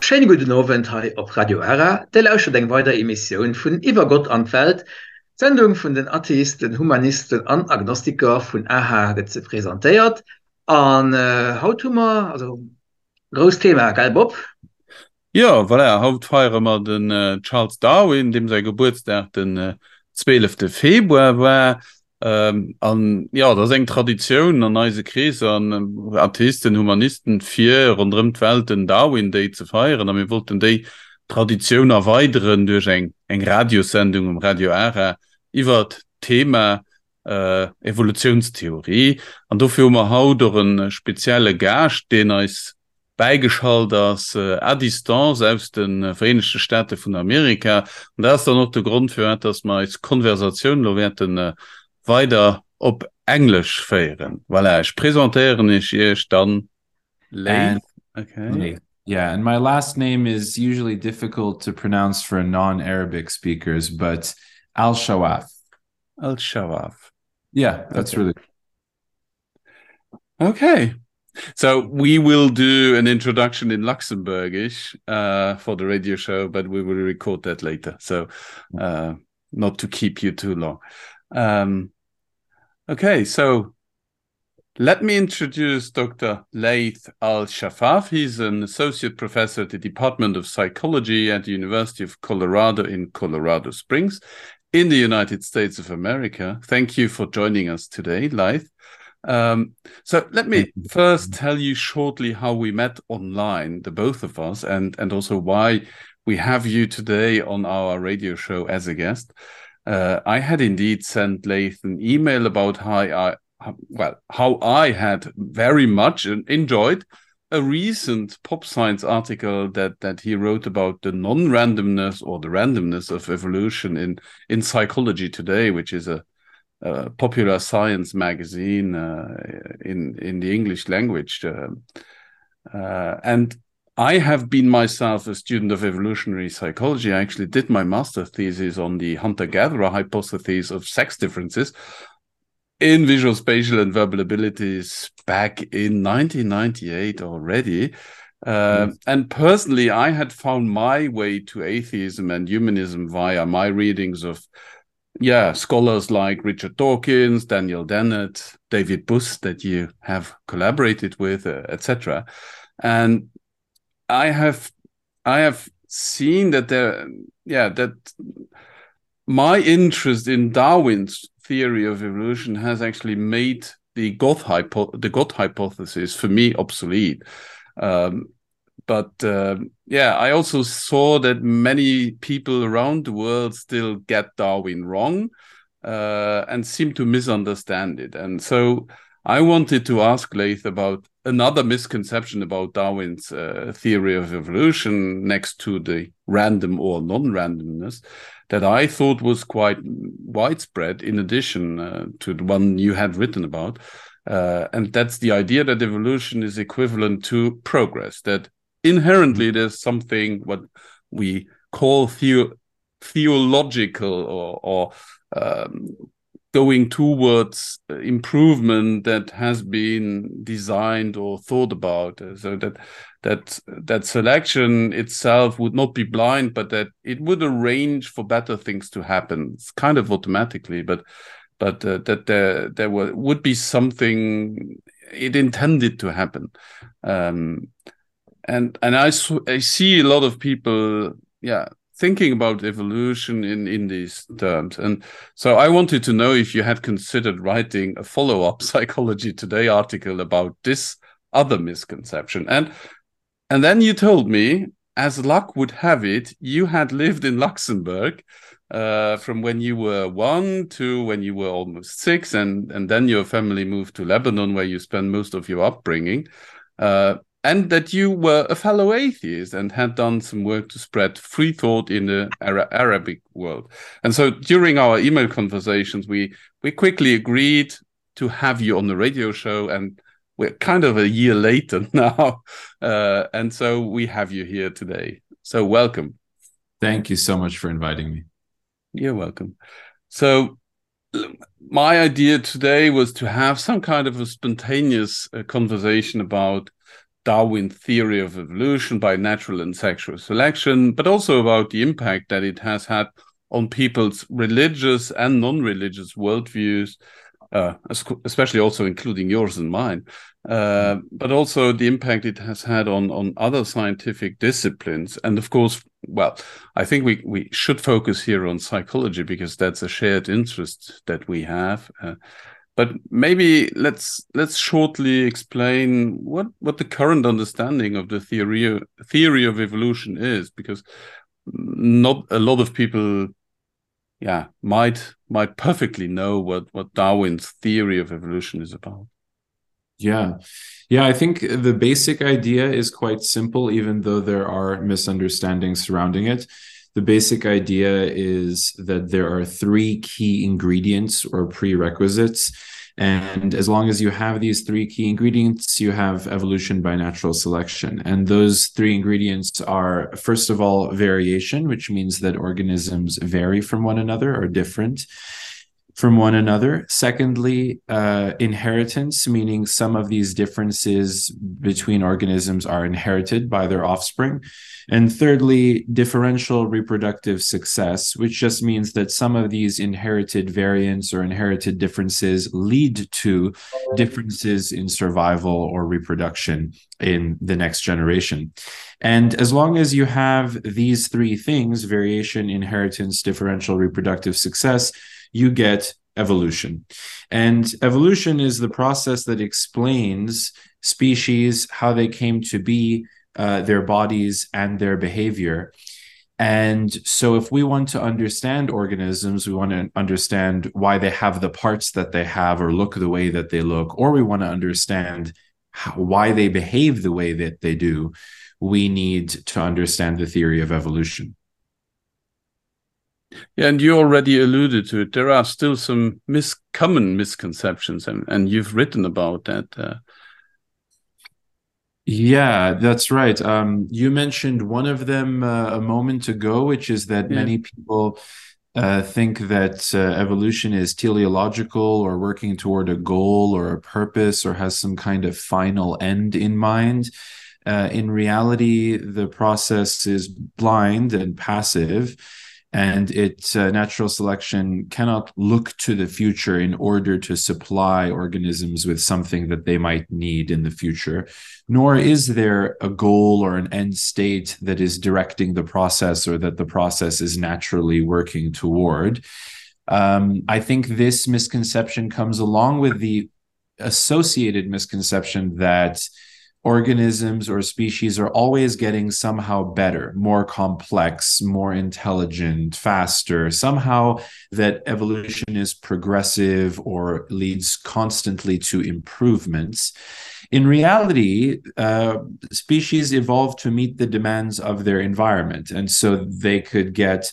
Schéine gudden Owend hei op Radio Ara. Dir lauschtert eng weider Emissioun vun Iwwer Gott an d'Welt. D'Sendung vun den Atheisten, Humanisten an Agnostiker vun aha gëtt se presentéiert. An haut hu mer also grousst Thema, gell Bob? Jo, voilà, haut feiere mer den Charles Darwin, deem säi Gebuertsdag den 12. Februar war. An jo, dat ass eng Traditioun an eise Kreesser, an Atheisten, Humanisten, fir ronderëm d'Welt den Darwin Day ze feieren. A mir wollten déi Traditioun erweideren duerch eng eng Radiossendung um Radio Ara iwwert d'Thema Evolutiounstheorie. An dofir hu mer haut och e spezielle Gaascht, deen eis bäigeschalt ass à distance aus de Vereenegte Staate vun Amerika. An dat ass dann och de Grond, firwat dass mer eis Konversatioun elo wäerte weider op Englesch féieren. Voilà, ech presentéieren iech iech dann Leith. Okay. Yeah, and my last name is usually difficult to pronounce for non-Arabic speakers, but Al-Shawaf. Al-Shawaf. Yeah, that's okay. really Okay. So we will do an introduction in Luxembourgish uh, for the radio show, but we will record that later. So uh, not to keep you too long. Um, okay, so let me introduce Dr. Laith Al Shafaf. He's an associate professor at the Department of Psychology at the University of Colorado in Colorado Springs in the United States of America. Thank you for joining us today, Laith. Um, so let me first tell you shortly how we met online, the both of us, and, and also why we have you today on our radio show as a guest. Uh, I had indeed sent Laith an email about how I, well, how I had very much enjoyed a recent pop science article that that he wrote about the non-randomness or the randomness of evolution in in psychology today, which is a, a popular science magazine uh, in in the English language. Uh, uh, and I have been myself a student of evolutionary psychology. I actually did my master thesis on the hunter-gatherer hypothesis of sex differences in visual, spatial, and verbal abilities back in 1998 already. Uh, mm. And personally, I had found my way to atheism and humanism via my readings of, yeah, scholars like Richard Dawkins, Daniel Dennett, David Buss that you have collaborated with, uh, etc. And I have, I have seen that there, yeah, that my interest in Darwin's theory of evolution has actually made the God, hypo the God hypothesis for me obsolete. Um, but uh, yeah, I also saw that many people around the world still get Darwin wrong uh, and seem to misunderstand it. And so I wanted to ask Laith about another misconception about Darwin's uh, theory of evolution next to the random or non-randomness that I thought was quite widespread in addition uh, to the one you had written about. Uh, and that's the idea that evolution is equivalent to progress, that inherently there's something what we call theo theological or, or um, going towards improvement that has been designed or thought about so that that that selection itself would not be blind but that it would arrange for better things to happen it's kind of automatically but but uh, that there there were, would be something it intended to happen um and and I, I see a lot of people yeah thinking about evolution in in these terms and so I wanted to know if you had considered writing a follow-up psychology today article about this other misconception and and then you told me as luck would have it you had lived in Luxembourg uh, from when you were one to when you were almost six and and then your family moved to Lebanon where you spent most of your upbringing uh, and that you were a fellow atheist and had done some work to spread free thought in the Ara Arabic world. And so during our email conversations, we, we quickly agreed to have you on the radio show and we're kind of a year later now. Uh, and so we have you here today. So welcome. Thank you so much for inviting me. You're welcome. So my idea today was to have some kind of a spontaneous uh, conversation about Darwin's theory of evolution by natural and sexual selection, but also about the impact that it has had on people's religious and non-religious worldviews, uh, especially also including yours and mine, uh, but also the impact it has had on, on other scientific disciplines. And of course, well, I think we, we should focus here on psychology because that's a shared interest that we have. Uh, but maybe let's let's shortly explain what what the current understanding of the theory theory of evolution is because not a lot of people yeah might might perfectly know what what Darwin's theory of evolution is about. Yeah. Yeah, I think the basic idea is quite simple, even though there are misunderstandings surrounding it. The basic idea is that there are three key ingredients or prerequisites. And as long as you have these three key ingredients, you have evolution by natural selection. And those three ingredients are, first of all, variation, which means that organisms vary from one another or different from one another. Secondly, uh, inheritance, meaning some of these differences between organisms are inherited by their offspring. And thirdly, differential reproductive success, which just means that some of these inherited variants or inherited differences lead to differences in survival or reproduction in the next generation. And as long as you have these three things variation, inheritance, differential reproductive success you get evolution. And evolution is the process that explains species, how they came to be, uh, their bodies, and their behavior. And so, if we want to understand organisms, we want to understand why they have the parts that they have or look the way that they look, or we want to understand how, why they behave the way that they do, we need to understand the theory of evolution. Yeah, and you already alluded to it. There are still some mis common misconceptions, and, and you've written about that. Uh... Yeah, that's right. Um, you mentioned one of them uh, a moment ago, which is that yeah. many people uh, think that uh, evolution is teleological or working toward a goal or a purpose or has some kind of final end in mind. Uh, in reality, the process is blind and passive and it uh, natural selection cannot look to the future in order to supply organisms with something that they might need in the future nor is there a goal or an end state that is directing the process or that the process is naturally working toward um, I think this misconception comes along with the associated misconception that organisms or species are always getting somehow better, more complex, more intelligent, faster, somehow that evolution is progressive or leads constantly to improvements. In reality, uh, species evolve to meet the demands of their environment. And so they could get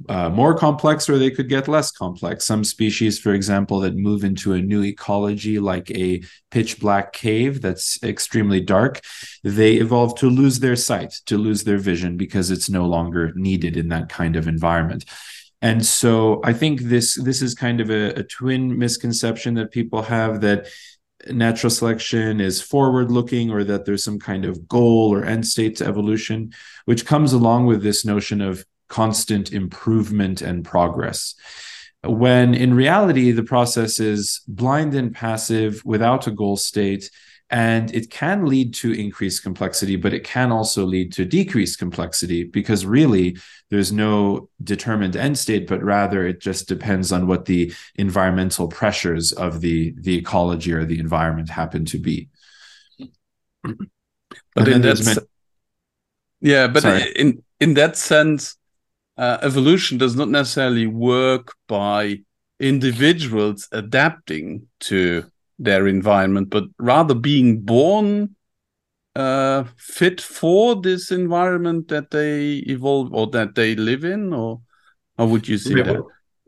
uh, more complex or they could get less complex. Some species, for example, that move into a new ecology, like a pitch black cave that's extremely dark, they evolve to lose their sight, to lose their vision because it's no longer needed in that kind of environment. And so I think this this is kind of a, a twin misconception that people have that natural selection is forward looking or that there's some kind of goal or end state to evolution, which comes along with this notion of constant improvement and progress. When in reality, the process is blind and passive without a goal state, and it can lead to increased complexity, but it can also lead to decreased complexity because really there's no determined end state, but rather it just depends on what the environmental pressures of the, the ecology or the environment happen to be. But in that, many... yeah, but Sorry. in in that sense, uh, evolution does not necessarily work by individuals adapting to their environment, but rather being born uh, fit for this environment that they evolve or that they live in, or how would you see yeah, that?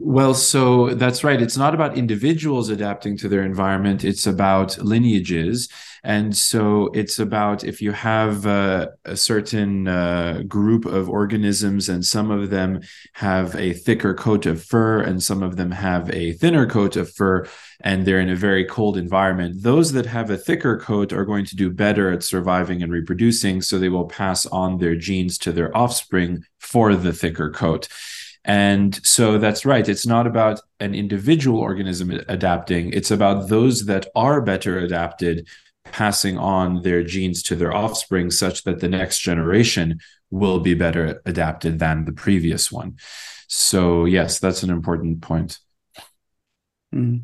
Well, so that's right. It's not about individuals adapting to their environment. It's about lineages. And so it's about if you have a, a certain uh, group of organisms and some of them have a thicker coat of fur and some of them have a thinner coat of fur and they're in a very cold environment, those that have a thicker coat are going to do better at surviving and reproducing. So they will pass on their genes to their offspring for the thicker coat. And so that's right. It's not about an individual organism adapting. It's about those that are better adapted passing on their genes to their offspring such that the next generation will be better adapted than the previous one. So yes, that's an important point. Mm.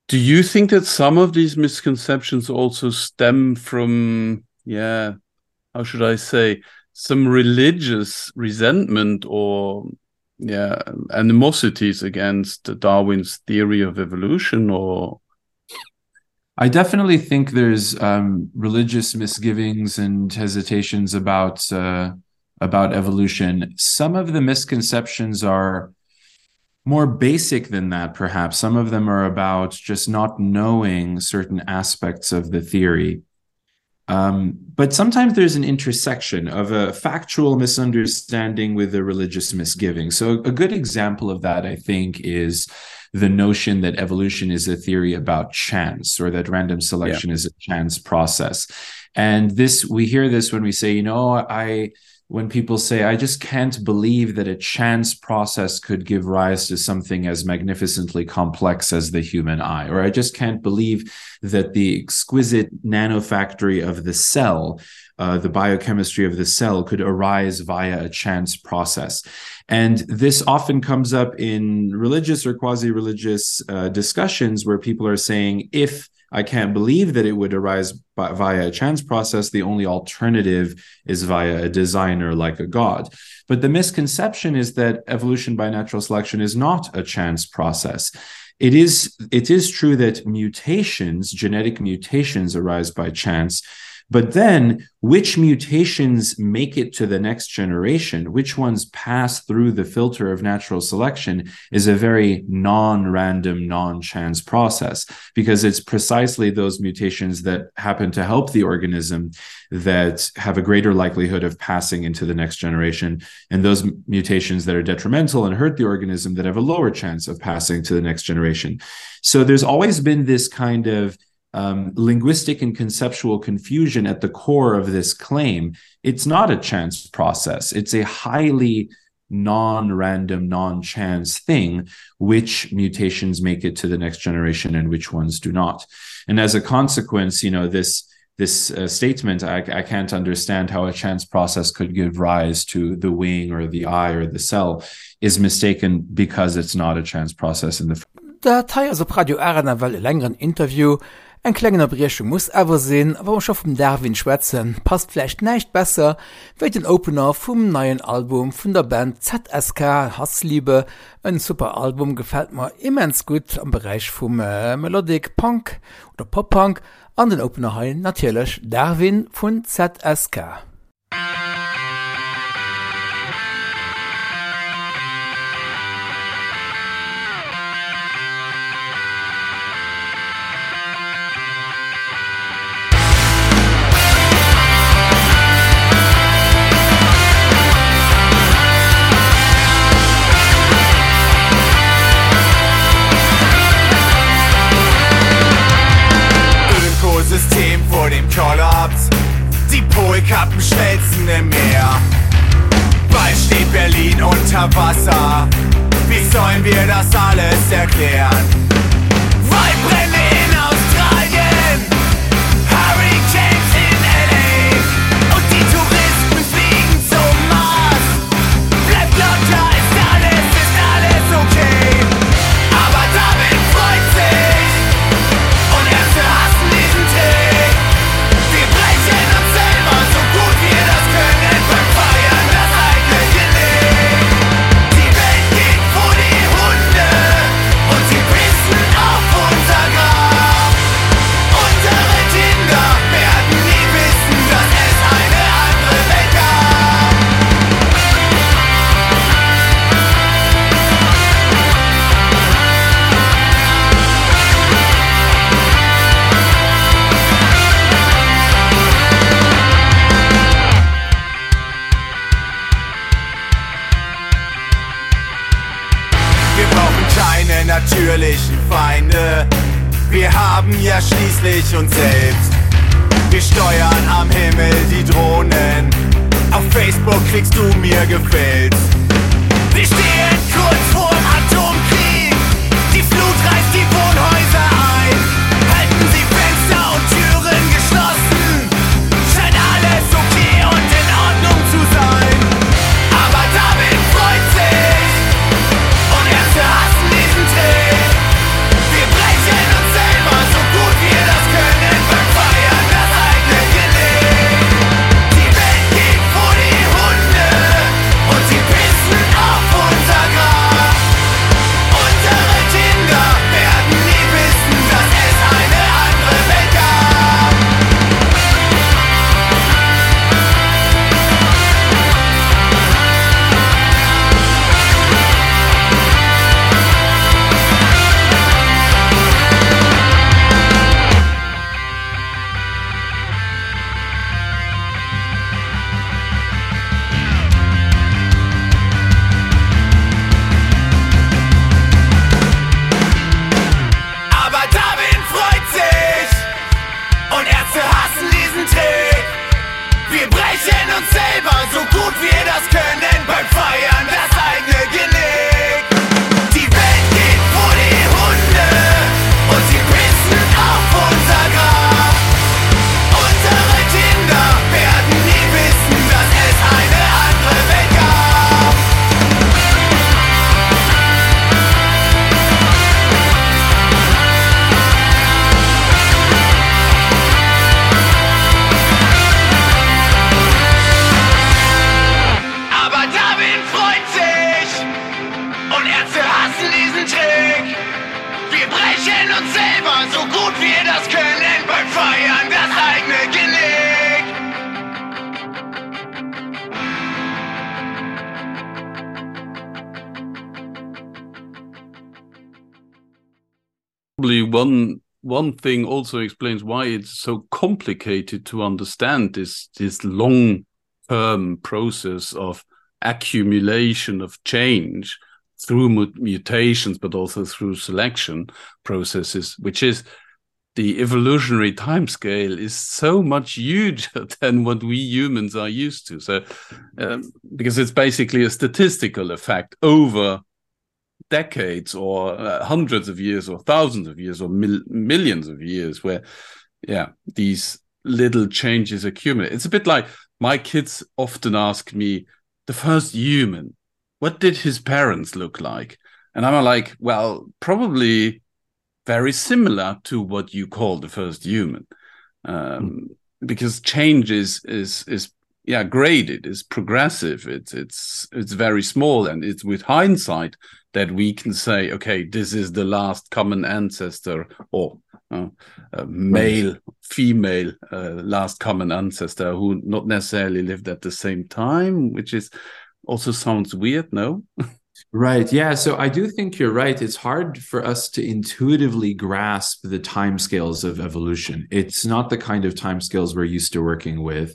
Do you think that some of these misconceptions also stem from yeah, how should I say, some religious resentment or yeah, animosities against Darwin's theory of evolution or I definitely think there's um, religious misgivings and hesitations about uh, about evolution. Some of the misconceptions are more basic than that, perhaps. Some of them are about just not knowing certain aspects of the theory. Um, but sometimes there's an intersection of a factual misunderstanding with a religious misgiving. So a good example of that, I think, is the notion that evolution is a theory about chance or that random selection yeah. is a chance process. And this we hear this when we say, you know, I when people say, I just can't believe that a chance process could give rise to something as magnificently complex as the human eye, or I just can't believe that the exquisite nanofactory of the cell, uh, the biochemistry of the cell could arise via a chance process. And this often comes up in religious or quasi-religious uh, discussions where people are saying, if I can't believe that it would arise by, via a chance process. The only alternative is via a designer like a god. But the misconception is that evolution by natural selection is not a chance process. It is, it is true that mutations, genetic mutations arise by chance, But then which mutations make it to the next generation, which ones pass through the filter of natural selection is a very non-random, non-chance process, because it's precisely those mutations that happen to help the organism that have a greater likelihood of passing into the next generation, and those mutations that are detrimental and hurt the organism that have a lower chance of passing to the next generation. So there's always been this kind of um, linguistic and conceptual confusion at the core of this claim. It's not a chance process. It's a highly non-random, non-chance thing, which mutations make it to the next generation and which ones do not. And as a consequence, you know, this this uh, statement, I, I can't understand how a chance process could give rise to the wing or the eye or the cell, is mistaken because it's not a chance process in the Dat hei ass op Radio Ara nawell e längeren Interview. Eng kleng Ënnerbriechung muss awer sinn, a wa mer scho vum Darwin schwätzen, passt vläicht näischt besser wéi den Opener vum neien Album vun der Band ZSK, Hassliebe. En super Album, gefält mer immens gutt am Beräich vum Melodic Punk oder Pop-Punk an den Opener hei natierlech Darwin vun ZSK. Ökosystem vor dem Kollaps. Die Polkappen schmelzen im Meer. Bald steht Berlin unter Wasser. Wie sollen wir das alles erklären? Waldbrände in Australien, Hurricanes in LA und die Touristen fliegen zum Mars. Bleibt locker, ist alles, ist alles okay. Aber David freut sich und Ärzte hassen diesen Trick. Wir brechen uns selber so gut wir das können beim Feiern das eigene Genick. Die Welt geht vor die Hunde und sie pissen. Wir brauchen keine natürlichen Feinde. Wir haben ja schließlich uns selbst. Wir steuern am Himmel die Drohnen. Auf Facebook kriegst du mir gefällt. Wir stehen kurz vorm Atomkrieg. Die Flut reißt die Wohnhäuser ein. Halten Sie Fenster und Türen geschlossen. Scheint alles okay und in Ordnung zu sein. Aber David freut sich und Ärzte hassen diesen Trick. Wir brechen uns selber so gut wir das können beim Feiern das eigene Genick. Die Welt geht vor die Hunde und sie pissen auf unser Grab. Unsere Kinder werden nie wissen, dass es eine andere Welt gab. Aber Darwin freut sich und Ärzte hassen diesen Trick. Wir brechen uns selber so gut wir das können beim Feiern das eigene Genick. Die Welt geht vor die Hunde und sie pissen auf unser Grab. Unsere Kinder werden nie wissen, dass es eine andere Welt gab. Aber Darwin freut sich und Ärzte hassen diesen Trick. Wir brechen uns selber so gut wir das können beim Feiern das eigene Genick. Probably one one thing also explains why it's so complicated to understand this this long term process of accumulation of change through mutations but also through selection processes which is the evolutionary timescale is so much huger than what we humans are used to so um, because it's basically a statistical effect over decades or uh, hundreds of years or thousands of years or mil millions of years where yeah these little changes accumulate it's a bit like my kids often ask me the first human what did his parents look like and I'm like well probably very similar to what you call the first human um mm. because change is is is yeah graded is progressive it's it's it's very small and it's with hindsight that we can say okay this is the last common ancestor or uh, uh, male female uh, last common ancestor who not necessarily lived at the same time which is also sounds weird no Right. Yeah. So I do think you're right. It's hard for us to intuitively grasp the timescales of evolution. It's not the kind of timescales we're used to working with,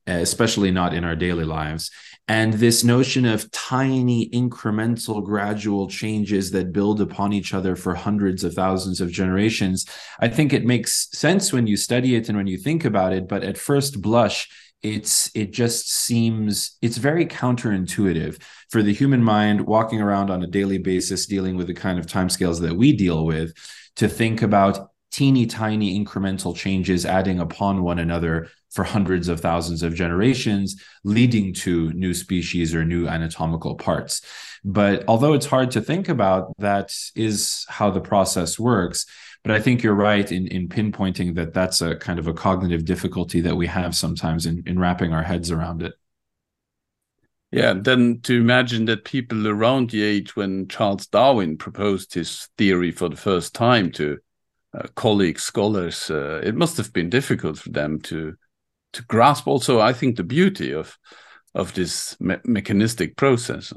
especially not in our daily lives. And this notion of tiny incremental gradual changes that build upon each other for hundreds of thousands of generations, I think it makes sense when you study it and when you think about it. But at first blush, it's it just seems it's very counterintuitive for the human mind walking around on a daily basis dealing with the kind of timescales that we deal with to think about teeny tiny incremental changes adding upon one another for hundreds of thousands of generations leading to new species or new anatomical parts but although it's hard to think about that is how the process works but I think you're right in in pinpointing that that's a kind of a cognitive difficulty that we have sometimes in in wrapping our heads around it. Yeah, then to imagine that people around the age when Charles Darwin proposed his theory for the first time to uh, colleagues, scholars, uh, it must have been difficult for them to to grasp also, I think, the beauty of of this me mechanistic process.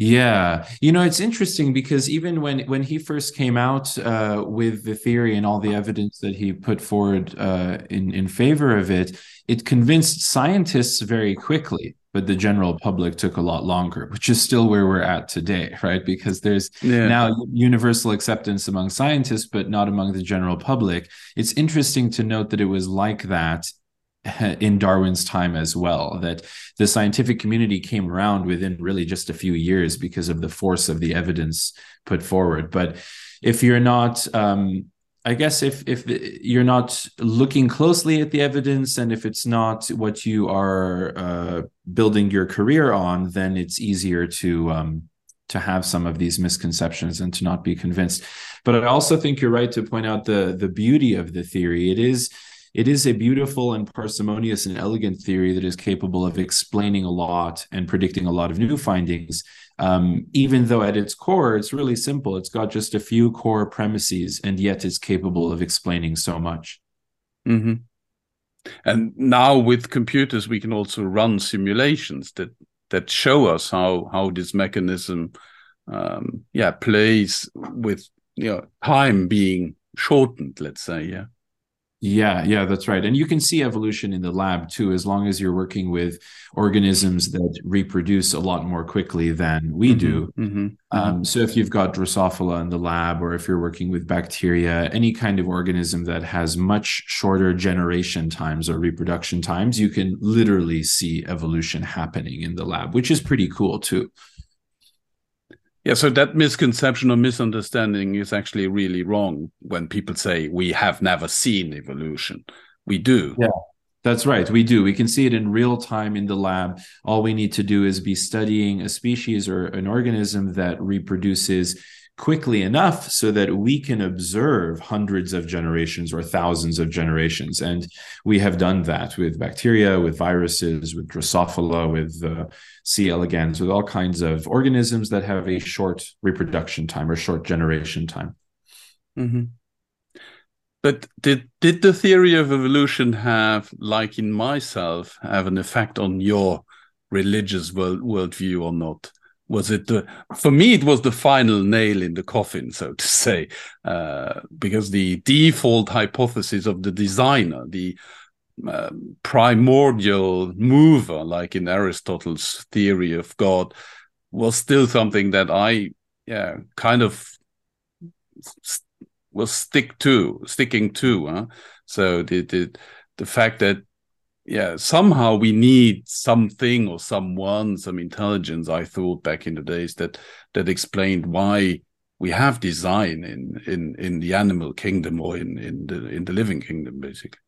Yeah, you know, it's interesting because even when when he first came out uh, with the theory and all the evidence that he put forward uh, in in favor of it, it convinced scientists very quickly. but the general public took a lot longer, which is still where we're at today, right? Because there's yeah. now universal acceptance among scientists, but not among the general public. It's interesting to note that it was like that in Darwin's time as well, that the scientific community came around within really just a few years because of the force of the evidence put forward. But if you're not um, I guess if if you're not looking closely at the evidence and if it's not what you are uh, building your career on, then it's easier to um, to have some of these misconceptions and to not be convinced. But I also think you're right to point out the the beauty of the theory. It is it is a beautiful and parsimonious and elegant theory that is capable of explaining a lot and predicting a lot of new findings. Um, even though at its core, it's really simple. It's got just a few core premises, and yet it's capable of explaining so much. Mm -hmm. And now with computers, we can also run simulations that that show us how how this mechanism um, yeah plays with you know time being shortened, let's say, yeah. Yeah, yeah, that's right. And you can see evolution in the lab too, as long as you're working with organisms that reproduce a lot more quickly than we mm -hmm, do. Mm -hmm, um, so if you've got Drosophila in the lab, or if you're working with bacteria, any kind of organism that has much shorter generation times or reproduction times, you can literally see evolution happening in the lab, which is pretty cool too. Yeah, so that misconception or misunderstanding is actually really wrong when people say we have never seen evolution. We do. Yeah. That's right. We do. We can see it in real time in the lab. All we need to do is be studying a species or an organism that reproduces quickly enough so that we can observe hundreds of generations or thousands of generations. And we have done that with bacteria, with viruses, with Drosophila, with uh, C. elegans, with all kinds of organisms that have a short reproduction time or short generation time. Mm -hmm. But did did the theory of evolution have, like in myself, have an effect on your religious world worldview or not? Was it the for me it was the final nail in the coffin, so to say, uh, because the default hypothesis of the designer, the uh, primordial mover, like in Aristotle's theory of God, was still something that I yeah kind of was stick to sticking to huh? so the, the the fact that yeah somehow we need something or someone some intelligence I thought back in the days that that explained why we have design in in in the animal kingdom or in in the in the living kingdom basically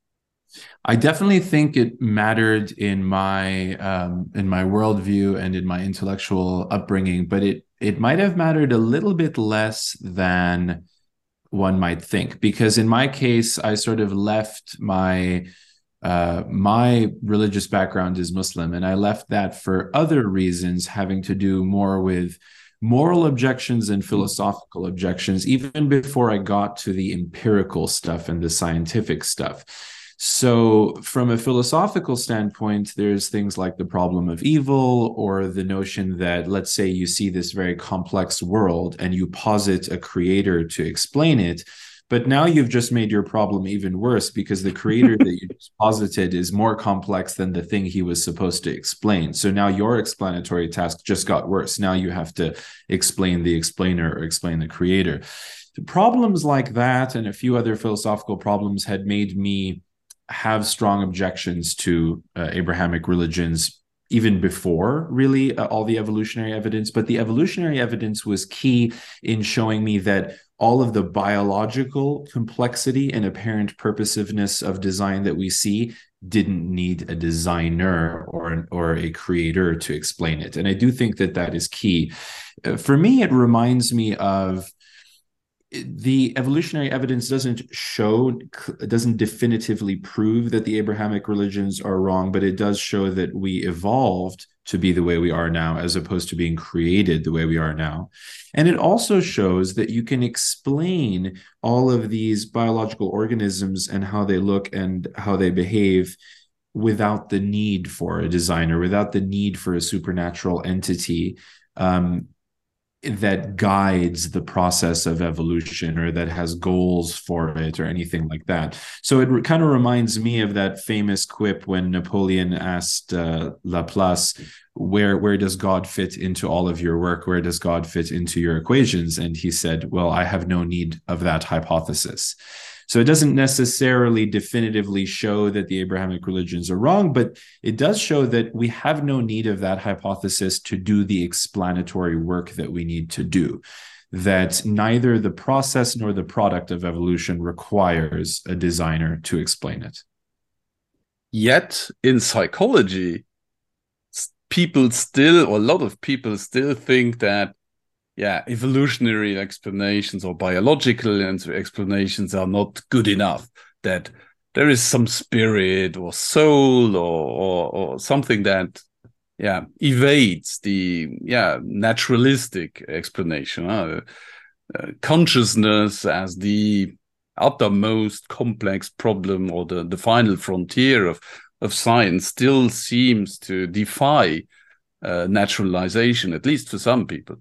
I definitely think it mattered in my um, in my worldview and in my intellectual upbringing, but it it might have mattered a little bit less than one might think because in my case I sort of left my uh, my religious background is Muslim and I left that for other reasons having to do more with moral objections and philosophical objections even before I got to the empirical stuff and the scientific stuff. So from a philosophical standpoint, there's things like the problem of evil or the notion that let's say you see this very complex world and you posit a creator to explain it, but now you've just made your problem even worse because the creator that you just posited is more complex than the thing he was supposed to explain. So now your explanatory task just got worse. Now you have to explain the explainer or explain the creator. The problems like that and a few other philosophical problems had made me have strong objections to uh, Abrahamic religions even before really uh, all the evolutionary evidence but the evolutionary evidence was key in showing me that all of the biological complexity and apparent purposiveness of design that we see didn't need a designer or an, or a creator to explain it and I do think that that is key uh, for me it reminds me of the evolutionary evidence doesn't show doesn't definitively prove that the Abrahamic religions are wrong but it does show that we evolved to be the way we are now as opposed to being created the way we are now and it also shows that you can explain all of these biological organisms and how they look and how they behave without the need for a designer without the need for a supernatural entity um, that guides the process of evolution or that has goals for it or anything like that. So it kind of reminds me of that famous quip when Napoleon asked uh, Laplace, where where does God fit into all of your work? Where does God fit into your equations? And he said, well, I have no need of that hypothesis. So it doesn't necessarily definitively show that the Abrahamic religions are wrong, but it does show that we have no need of that hypothesis to do the explanatory work that we need to do. That neither the process nor the product of evolution requires a designer to explain it. Yet in psychology, people still, or a lot of people still think that yeah, evolutionary explanations or biological explanations are not good enough. That there is some spirit or soul or, or, or something that yeah evades the yeah naturalistic explanation. Uh, uh, consciousness as the uttermost complex problem or the, the final frontier of, of science still seems to defy uh, naturalization, at least for some people.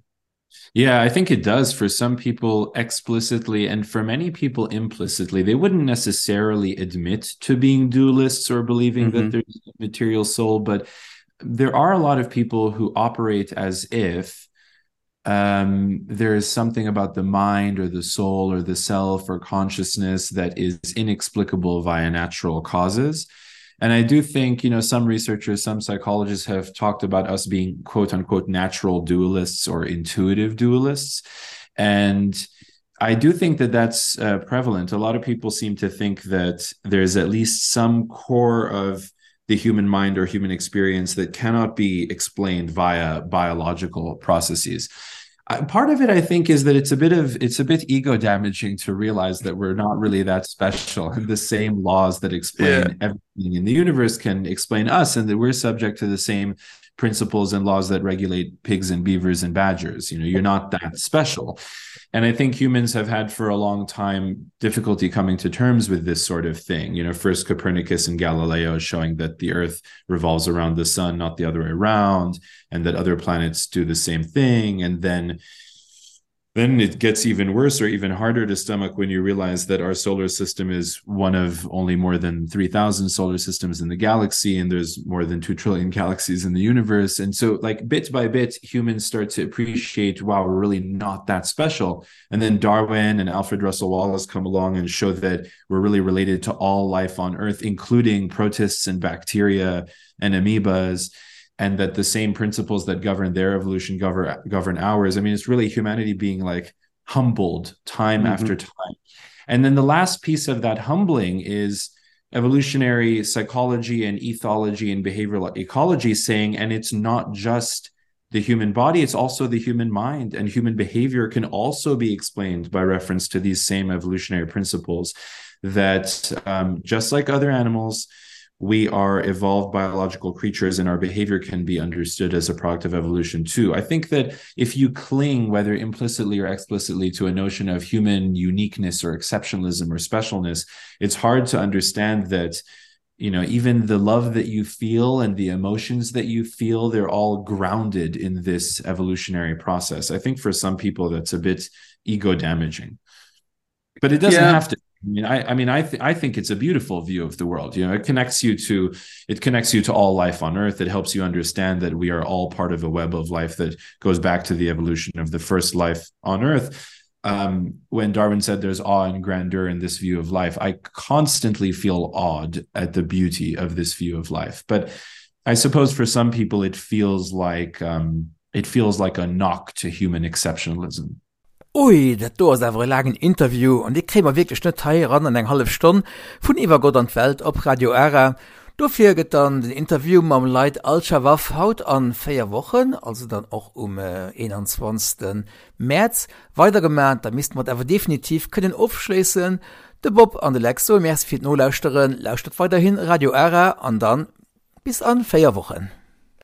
Yeah, I think it does for some people explicitly and for many people implicitly. They wouldn't necessarily admit to being dualists or believing mm -hmm. that mm-hmm. there's a material soul, but there are a lot of people who operate as if um, there is something about the mind or the soul or the self or consciousness that is inexplicable via natural causes. And I do think, you know, some researchers, some psychologists have talked about us being quote unquote natural dualists or intuitive dualists. And I do think that that's uh, prevalent. A lot of people seem to think that there's at least some core of the human mind or human experience that cannot be explained via biological processes. Uh, part of it, I think, is that it's a bit of it's a bit ego damaging to realize that we're not really that special, and the same laws that explain yeah. everything in the universe can explain us, and that we're subject to the same principles and laws that regulate pigs and beavers and badgers. You know, you're not that special. And I think humans have had for a long time difficulty coming to terms with this sort of thing. You know, first Copernicus and Galileo showing that the Earth revolves around the sun, not the other way around, and that other planets do the same thing. And then then it gets even worse or even harder to stomach when you realize that our solar system is one of only more than 3000 solar systems in the galaxy and there's more than 2 trillion galaxies in the universe and so like bit by bit humans start to appreciate wow we're really not that special and then Darwin and Alfred Russel Wallace come along and show that we're really related to all life on earth including protists and bacteria and amoebas and that the same principles that govern their evolution govern govern ours. I mean, it's really humanity being like humbled time mm -hmm. after time. And then the last piece of that humbling is evolutionary psychology and ethology and behavioral ecology saying, and it's not just the human body, it's also the human mind, and human behavior can also be explained by reference to these same evolutionary principles that um, just like other animals, we are evolved biological creatures and our behavior can be understood as a product of evolution too. I think that if you cling, whether implicitly or explicitly, to a notion of human uniqueness or exceptionalism or specialness, it's hard to understand that you know even the love that you feel and the emotions that you feel they're all grounded in this evolutionary process i think for some people that's a bit ego damaging but it doesn't yeah. have to I mean, I, I mean, I, th I think it's a beautiful view of the world. You know, it connects you to, it connects you to all life on Earth. It helps you understand that we are all part of a web of life that goes back to the evolution of the first life on Earth. Um, when Darwin said there's awe and grandeur in this view of life, I constantly feel awed at the beauty of this view of life. But I suppose for some people, it feels like um, it feels like a knock to human exceptionalism. Ui, dat do ass awer e laangen Interview an dee kréie mer wierklech net hei eran an eng hallef Stonn vun Iwwer Gott an d'Welt op Radio Ara. Dofir gëtt dann den Interview mam Laith Al-Shawaf haut an 4 Wochen, also dann och um 21 Mäerz, weidergemaat. Da misste mer et awer definitiv kënnen ofschléissen. De Bob an de Lex soe Merci fir d'Nolauschteren. Lauschtert weiderhin Radio Ara an dann bis an 4 Wochen.